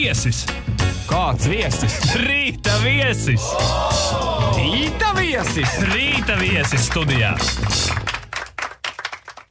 viesis! Kāds viesis? Rīta viesis! Rīta viesis! Rīta viesis studijā!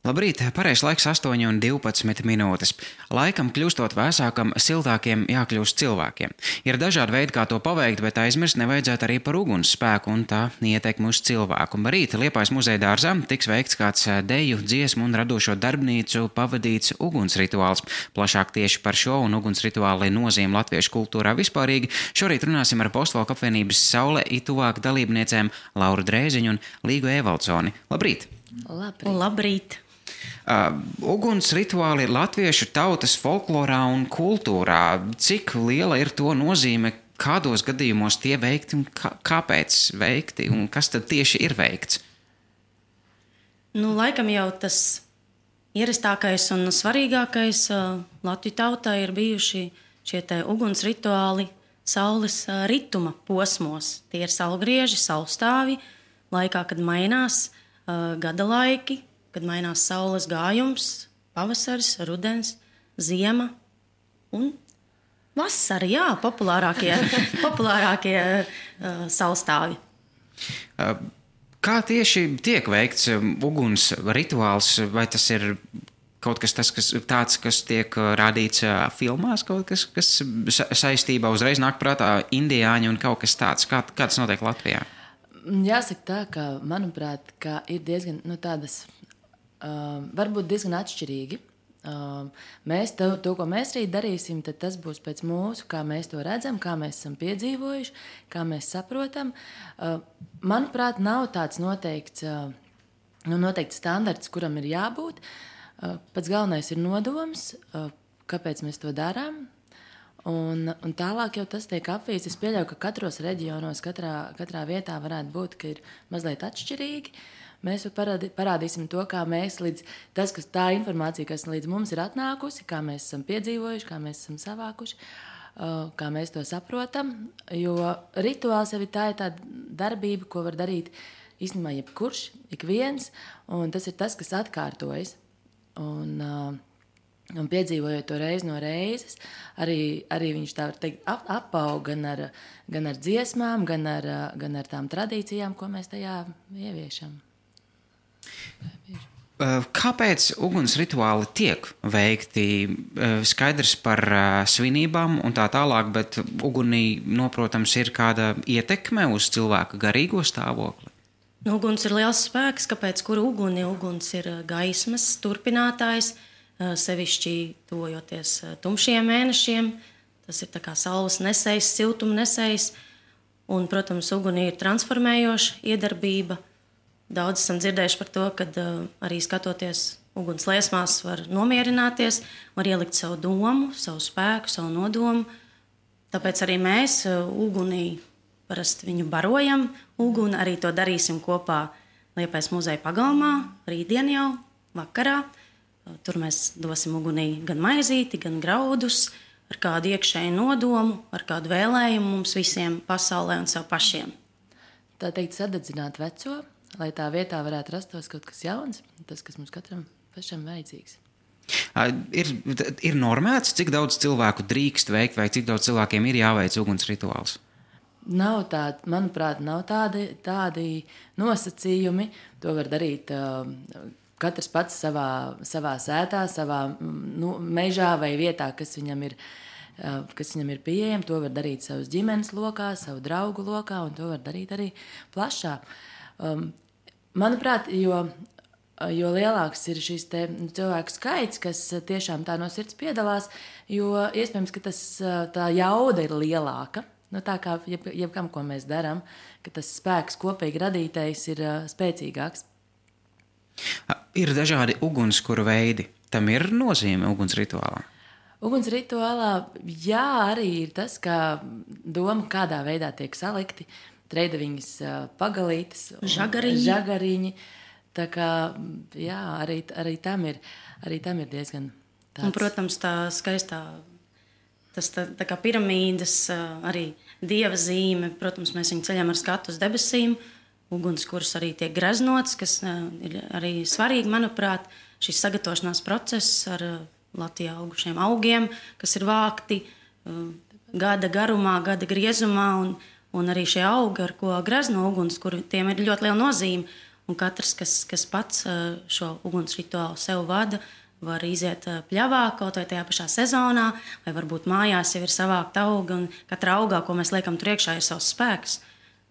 Labrīt, pareizs laiks 8:12. Laikam kļūstot vēsākam, siltākiem jākļūst cilvēkiem. Ir dažādi veidi, kā to paveikt, bet aizmirst nevajadzētu arī par ugunsspēku un tā ietekmi uz cilvēku. Rīt Liepājas muzeja dārzā tiks veikts kāds deju, dziesmu un radošo darbnīcu pavadīts ugunsrituāls. Plašāk tieši par šo un ugunsrituāli nozīmi latviešu kultūrā vispārīgi šorīt runāsim ar Postvalku apvienības Saule ituvāk dalībniecēm Lauru Drēziņu un Līgu Evaldsoni. Labrīt! Labrīt! Uguns rituāli ir latviešu tautas folklorā un kultūrā. Cik liela ir to nozīme, kādos gadījumos tie veikti un kāpēc veikti un kas tad tieši ir veikts? Laikam jau tas ierastākais un svarīgākais Latviju tautā ir bijuši šie te uguns rituāli saules rituma posmos. Tie ir saulgrieži, saulstāvi, laikā, kad mainās gada laiki, kad mainās saules gājums, pavasaris, rudens, ziema un vasara, populārākie saulstāvi. Kā tieši tiek veikts uguns rituāls, vai tas ir kaut kas tāds, kas tiek rādīts filmās, kaut kas saistībā uzreiz nāk prātā indiāņi un kaut kas tāds? Kā tas notiek Latvijā? Jāsaka tā, ka, manuprāt, ka ir diezgan tādas, varbūt diezgan atšķirīgi. Mēs to, ko mēs rīt darīsim, tad tas būs pēc mūsu, kā mēs to redzam, kā mēs esam piedzīvojuši, kā mēs saprotam. Manuprāt, nav tāds noteikts standarts, kuram ir jābūt. Pats galvenais ir nodoms, kāpēc mēs to darām. Un tālāk jau tas tiek apvīts. Es pieļauju, ka katros reģionos, katrā vietā varētu būt, ka ir mazliet atšķirīgi. Mēs parādīsim to, kā mēs tā informācija, kas līdz mums ir atnākusi, kā mēs esam piedzīvojuši, kā mēs esam savākuši, kā mēs to saprotam. Jo rituāls jau ir tāda darbība, ko var darīt īstenībā jebkurš, ik viens, un tas ir tas, kas atkārtojas. Un piedzīvojot to reizi no reizes, arī viņš tā var teikt apaug gan ar dziesmām, gan ar tām tradīcijām, ko mēs tajā ieviešam. Kāpēc uguns rituāli tiek veikti? Skaidrs par svinībām un tā tālāk, bet ugunī, protams, ir kāda ietekme uz cilvēka garīgo stāvokli. Uguns ir liels spēks, kāpēc kuru uguni? Uguns ir gaismas turpinātājs, sevišķi tuvojoties tumšiem mēnešiem. Tas ir tā kā saules nesējs, siltuma nesējs. Un, protams, ugunī ir transformējoša iedarbība. Daudz esam dzirdējuši par to, ka arī skatoties uguns liesmās var nomierināties, var ielikt savu domu, savu spēku, savu nodomu. Tāpēc arī mēs ugunī parasti viņu barojam. Uguni arī to darīsim kopā Liepājas muzeja pagalmā, rītdien jau, vakarā. Tur mēs dosim ugunī gan maizīti, gan graudus, ar kādu iekšēju nodomu, ar kādu vēlējumu mums visiem pasaulē un sev pašiem. Tā teikt, sadedzināt veco, lai tā vietā varētu rastos kaut kas jauns, tas, kas mums katram pašam vajadzīgs. Ir normēts, cik daudz cilvēku drīkst veikt, vai cik daudz cilvēkiem ir jāveic uguns rituāls? Manuprāt, nav tādi nosacījumi. To var darīt katrs pats savā sētā, savā mežā vai vietā, kas viņam ir pieejama. To var darīt savas ģimenes lokā, savu draugu lokā, un to var darīt arī plašā. Manuprāt, jo lielāks ir šis cilvēku skaits, kas tiešām tā no sirds piedalās, jo iespējams, ka tā jauda ir lielāka. Tā kā jebkam, ko mēs darām, ka tas spēks kopīgi radītais ir spēcīgāks. Ir dažādi ugunskura veidi. Tam ir nozīme uguns rituālā? Uguns rituālā, jā, arī ir tas, ka doma, kādā veidā tiek salikti treidaviņas pagalītes, žagariņi. Tā kā, jā, arī tam ir diezgan tāds. Un, protams, tā skaistā, tas tā kā piramīdas, arī dieva zīme. Protams, mēs viņu ceļam ar skatu uz debesīm. Ugunskurs arī tiek greznots, kas ir arī svarīgi, manuprāt, šis sagatavošanās process ar Latvijā augušiem augiem, kas ir vākti gada garumā, gada griezumā, un arī šie augi, ar ko grazno uguns, kur tiem ir ļoti liela nozīme. Un katrs, kas pats šo uguns rituālu sev vada, var iziet pļavā kaut vai tajā pašā sezonā, vai varbūt mājās jau ir savākta auga, un katra augā, ko mēs liekam tur iekšā, ir savs spēks.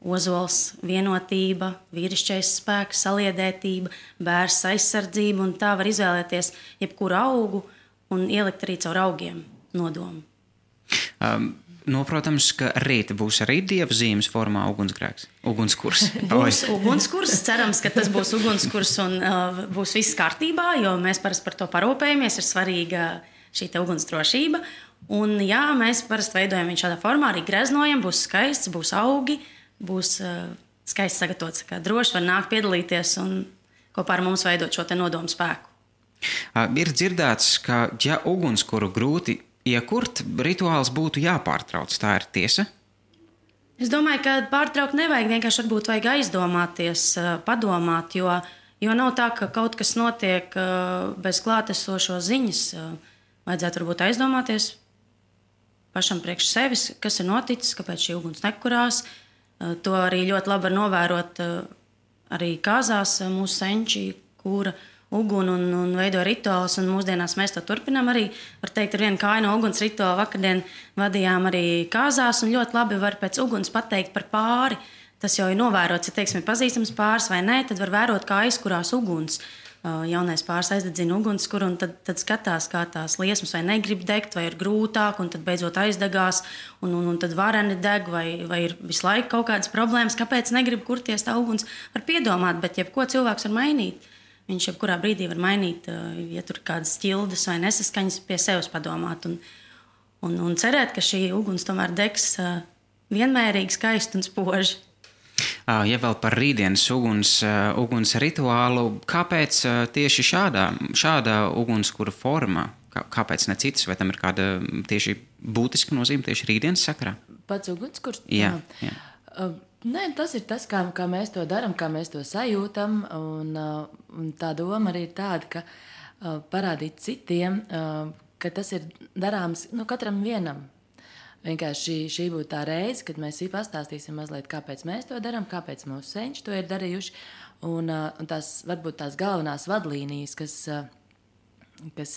Ozols, vienotība, vīrišķais spēks, saliedētība, bērs aizsardzība, un tā var izvēlēties jebkuru augu un ielikt arī caur augiem nodomu. Protams, ka rīt būs arī dieva zīmes formā ugunsgrēks, ugunskurs. Būs ugunskurs, cerams, ka tas būs ugunskurs un būs viss kārtībā, jo mēs parasti par to parūpējamies, ir svarīga šī te ugunsdrošība. Un jā, mēs parasti veidojam viņu šādā formā, arī greznojam, būs skaists, būs augi, būs skaisti sagatavots, kā droši var nākt piedalīties un kopā ar mums veidot šo te nodomu spēku. Ir dzirdēts, ka ja ugunskuru grūti iekurt, rituāls būtu jāpārtrauc. Tā ir tiesa? Es domāju, ka pārtraukt nevajag, vienkārši varbūt vajag aizdomāties, padomāt, jo nav tā, ka kaut kas notiek bez klātesošo ziņas. Vajadzētu varbūt aizdomāties pašam priekš sevis, kas ir noticis, kāpēc šī uguns nekurās. To arī ļoti labi var novērot arī kāzās mūsu senči, kura uguni un veido rituālus, un mūsdienās mēs to turpinām arī. Var teikt, ar vienu kāju no uguns rituālu vakardien vadījām arī kāzās, un ļoti labi var pēc uguns pateikt par pāri. Tas jau ir novērots, ja teiksim, ir pazīstams pāris vai nē, tad var vērot, kā aizkurās uguns. Jaunais pāris aizdedzina ugunskura, un tad skatās, kā tās liesmas vai negrib degt, vai ir grūtāk, un tad beidzot aizdegās, un tad vareni deg, vai ir visu laiku kaut kādas problēmas, kāpēc negrib kurties tā uguns. Var piedomāt, bet jebko cilvēks var mainīt. Viņš jebkurā brīdī var mainīt, ja tur ir kādas ķildes vai nesaskaņas, pie sevis padomāt un cerēt, ka šī uguns tomēr degs vienmērīgi, skaisti un spoži. Ja vēl par rītdienas uguns rituālu, kāpēc tieši šāda ugunskura forma? Kāpēc ne citas? Vai tam ir kāda tieši būtiska nozīme tieši rītdienas sakarā? Pats ugunskurs? Jā. Nē, tas ir tas, kā mēs to darām, kā mēs to sajūtam. Un tā doma arī ir tāda, ka parādīt citiem, ka tas ir darāms katram vienam. Vienkārši šī būtu tā reize, kad mēs pastāstīsim mazliet, kāpēc mēs to darām, kāpēc mūsu senči to ir darījuši. Un tās varbūt tās galvenās vadlīnijas, kas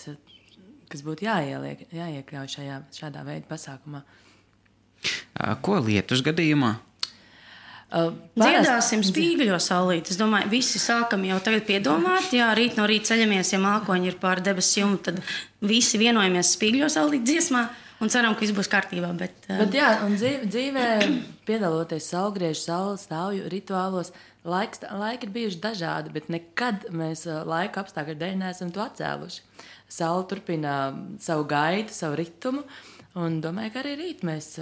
būtu jāiekļauj šādā veida pasākumā. Ko lietus gadījumā? Dziedāsim spīgļo saulīt. Es domāju, visi sākam jau tagad piedomāt. Jā, rīt no rīta ceļamies, ja mākoņi ir pār debesu jumtu, tad visi vienojamies spīgļo saulīt dziesmā un ceram, ka viss būs kārtībā. Bet jā, un dzīvē piedaloties saulgriežu, saules stāvju rituālos, laiki ir bijuši dažādi, bet nekad mēs laika apstākļu dēļ neesam to atcēluši. Saule turpina savu gaitu, savu ritumu, un domāju, ka arī rīt mēs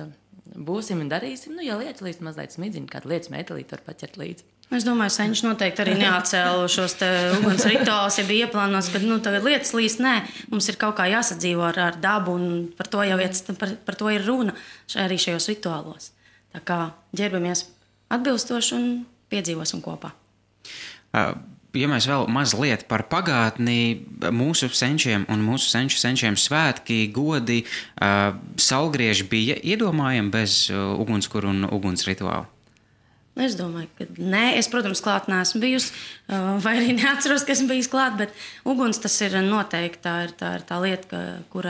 būsim un darīsim. Ja lietas līdz mazliet smidziņu, kādu lietas metelīti var paķert līdzi. Es domāju, senči noteikti arī neatcēlu šos te uguns rituālus, ja bija ieplānots, ka tagad lietas līdz nē. Mums ir kaut kā jāsadzīvo ar dabu, un par to ir runa arī šajos rituālos. Tā kā ģērbamies atbilstoši un piedzīvosim kopā. Ja mēs vēl mazliet par pagātni, mūsu senčiem un mūsu senčiem svētki, godi, saulgrieži bija iedomājami bez ugunskura un uguns rituāla? Es domāju, ka nē. Es, protams, klāt neesmu bijusi, vai arī neatceros, ka esmu bijusi klāt, bet uguns tas ir noteikti. Tā ir tā lieta, kur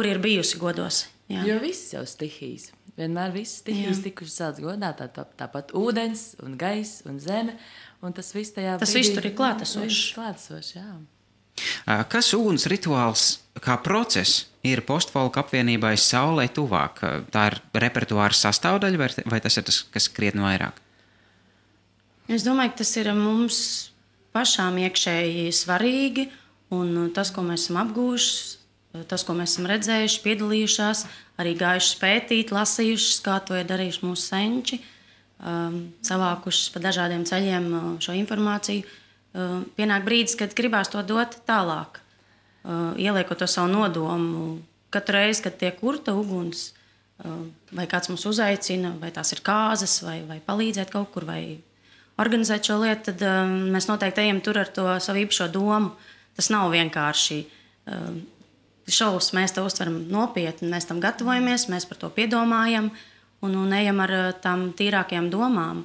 ir bijusi godos. Jā. Jo viss jau stihijas. Vienmēr viss stihijas tikuši celts godā, tāpat ūdens un gaiss un zeme. Un tas viss tur ir klātesošs. Kas uguns rituāls kā process ir postfolka apvienībai Saulei tuvāk? Tā ir repertuāra sastāvdaļa vai tas ir tas, kas krietni vairāk? Es domāju, ka tas ir mums pašām iekšēji svarīgi. Un tas, ko mēs esam apgūjuši, tas, ko mēs esam redzējuši, piedalījušās, arī gājuši pētīt, lasījuši, kā to ir darījuši mūsu senči. Savākušas pa dažādiem ceļiem šo informāciju. Pienāk brīdis, kad gribās to dot tālāk, ieliekot to savu nodomu. Katru reizi, kad tiek kurta uguns, vai kāds mūs uzaicina, vai tās ir kāzas, vai palīdzēt kaut kur, vai organizēt šo lietu, tad mēs noteikti ejam tur ar to savu īpašo domu. Tas nav vienkārši šovus mēs to uztveram nopietni, mēs tam gatavojamies, mēs par to piedomājam un ejam ar tām tīrākajām domām.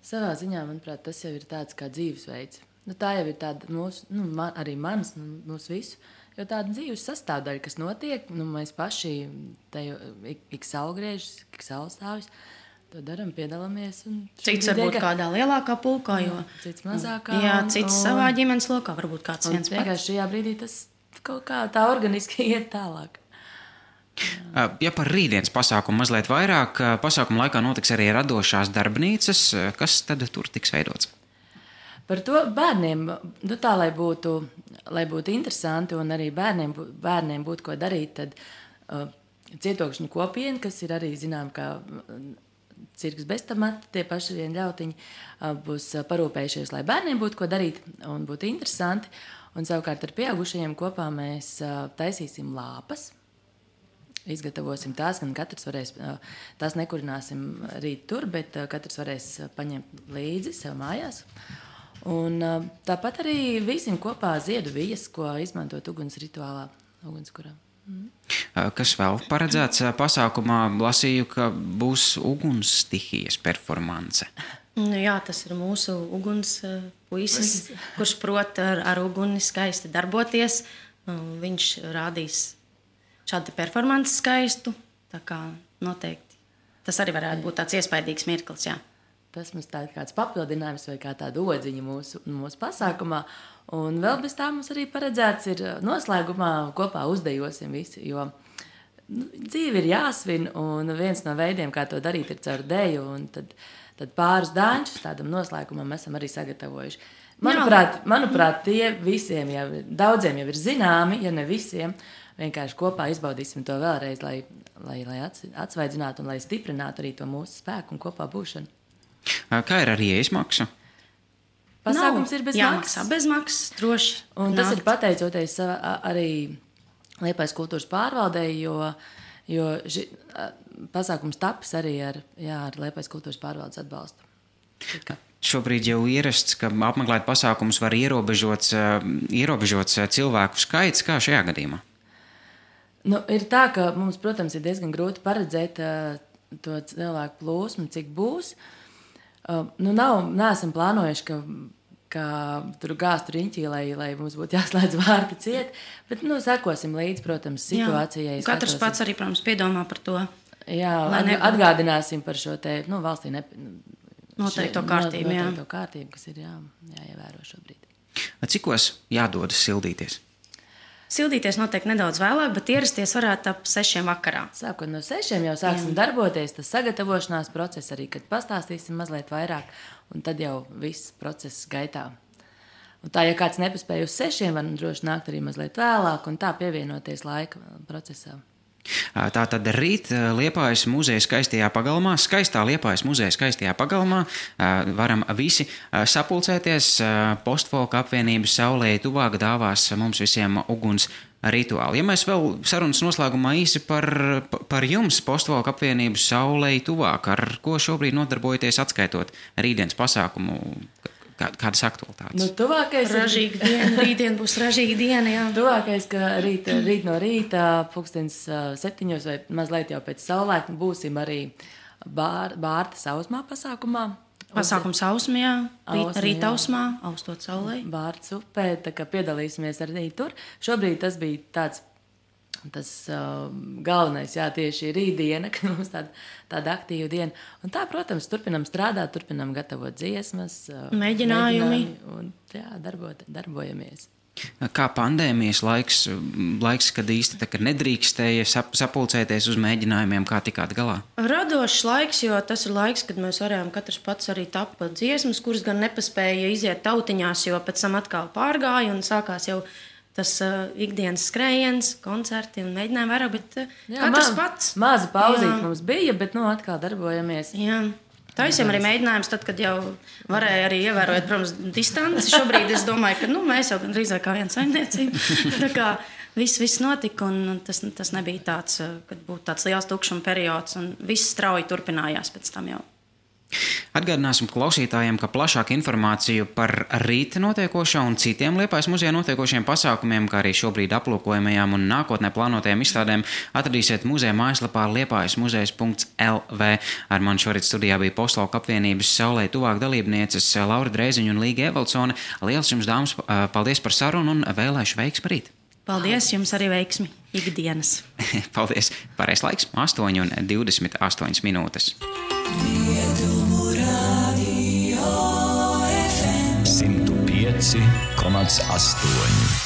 Savā ziņā, manuprāt, tas jau ir tāds kā dzīvesveids. Tā jau ir tāda mūsu, arī manas, mūsu visu, jo tāda dzīves sastāvdaļa, kas notiek, mēs paši ik saulgriežas, ik saulstāvis, to daram, piedalāmies. Cits varbūt kādā lielākā pulkā, cits mazākā. Jā, cits savā ģimenes lokā, varbūt kāds viens pats. Vienkārši šajā brīdī tas kaut kā tā organiski iet tālāk. Ja par rītdienas pasākumu mazliet vairāk, pasākuma laikā notiks arī radošās darbnīcas, kas tad tur tiks veidots? Par to bērniem, tā, lai būtu interesanti un arī bērniem būtu ko darīt, tad cietokšņu kopiena, kas ir arī zinām, kā cirks bez tamata, tie paši vien ļautiņi, būs parūpējušies, lai bērniem būtu ko darīt un būtu interesanti. Un savukārt ar pieaugušajiem kopā mēs taisīsim lāpas. Izgatavosim tās, gan katrs varēs, tās nekurināsim rīt tur, bet katrs varēs paņemt līdzi sev mājās. Un tāpat arī vīsim kopā ziedu vijas, ko izmantot uguns rituālā, ugunskurā. Kas vēl paredzēts pasākumā? Lasīju, ka būs uguns stihijas performance. Jā, tas ir mūsu uguns puisis, kurš prot ar uguni skaisti darboties. Viņš rādīs šādu performanci skaistu, tā kā noteikti. Tas arī varētu būt tāds iespaidīgs mirklis, jā. Tas mums tā ir kāds papildinājums vai kā tāda odziņa mūsu pasākumā. Un vēl bez tā mums arī paredzēts ir noslēgumā kopā uzdejosim visi, jo dzīve ir jāsvin, un viens no veidiem, kā to darīt, ir caur deju, un tad pāris dāņus tādam noslēgumam esam arī sagatavojuši. Manuprāt, tie visiem jau, daudziem jau ir zināmi, ja ne visiem, vienkārši kopā izbaudīsim to vēlreiz, lai atsvaidzinātu un lai stiprinātu arī to mūsu spēku un kopā būšanu. Kā ir ar ieejas maksu? Pasākums ir bez maksas. Jāmaksā bez maksas, droši. Un tas ir pateicoties arī Liepājas kultūras pārvaldei, jo pasākums tapis arī ar Liepājas kultūras pārvaldes atbalstu. Šobrīd jau ierasts, ka apmeklēt pasākumus var ierobežots cilvēku skaits, kā šajā gadījumā? Ir tā, ka mums, protams, ir diezgan grūti paredzēt to cilvēku plūsmu, cik būs. Neesam plānojuši, ka tur gāstu riņķī, lai mums būtu jāslēdz vārti ciet, bet sekosim līdz, protams, situācijai. Katrs pats arī, protams, piedomā par to. Jā, atgādināsim par šo te, valstī noteikto kārtību, noteikto kārtību, kas ir jāievēro šobrīd. Cikos jādodas sildīties? Sildīties noteikti nedaudz vēlāk, bet ierasties varētu ap 6 vakarā. Sākot no 6 jau sāksim darboties, tas sagatavošanās process arī, kad pastāstīsim mazliet vairāk, un tad jau viss process gaitā. Un tā, ja kāds nepaspēja uz 6, var droši nākt arī mazliet vēlāk, un tā pievienoties laika procesā. Tātad rīt Liepājas muzeja skaistajā pagalmā, skaistā Liepājas muzeja skaistajā pagalmā, varam visi sapulcēties. Postfolka apvienības Saulei tuvāk dāvās mums visiem uguns rituāli. Ja mēs vēl sarunas noslēgumā īsi par jums, Postfolka apvienības Saulei tuvāk, ar ko šobrīd nodarbojaties atskaitot rītdienas pasākumu? Kādas aktualitātes? Tuvākais ražīga diena. Rītdien būs ražīga diena, jā. Tuvākais, ka rīt no rīta, 7 vai mazliet jau pēc saulēkņa, būsim arī Bārta sausmā pasākumā. Pasākums Ausmā, jā. Rīta Ausmā, austot saulē. Bārtas upē, tā kā piedalīsimies arī tur. Šobrīd tas bija tas galvenais, tieši rītdiena, ka mums tāda aktīva diena. Un tā, protams, turpinam strādāt, turpinam gatavot dziesmas, mēģinājumi un darbojamies. Kā pandēmijas laiks, kad īsti tā, kad nedrīkstēja sapulcēties uz mēģinājumiem, kā tikāt galā? Radošs laiks, jo tas ir laiks, kad mēs varējām katrs pats arī tapt dziesmas, kuras gan nepaspēja iziet tautiņās, jo pēc tam atkal pārgāja un sākās jau tas ikdienas skrējiens, koncerti un mēģinājumi vairāk, bet katrs pats. Maza pauzīt mums bija, bet atkal darbojamies. Jā. Taisījām arī mēģinājums tad, kad jau varēja arī ievērot, protams, distanci. Šobrīd es domāju, ka mēs jau drīzāk kā viena saimniecība. Tā kā viss notika un tas nebija tāds, kad būtu tāds liels tukšuma periods un viss strauji turpinājās pēc tam jau. Atgādināsim klausītājiem, ka plašāku informāciju par rīt notiekošo un citiem Liepājas muzejā notiekošiem pasākumiem, kā arī šobrīd aplūkojamajām un nākotnē plānotajām izstādēm, atradīsiet muzeja mājaslapā liepājasmuzejs.lv. Ar mani šorīt studijā bija Postlauku apvienības Saulei tuvāk dalībnieces Laura Dreiziņa un Līga Evaldsone. Liels jums, dāmas, paldies par sarunu un vēlēšu veiksmi rīt! Paldies, jums arī veiksmi ikdienas. Paldies! Pareizais laiks 8:28 minūtes. 105,8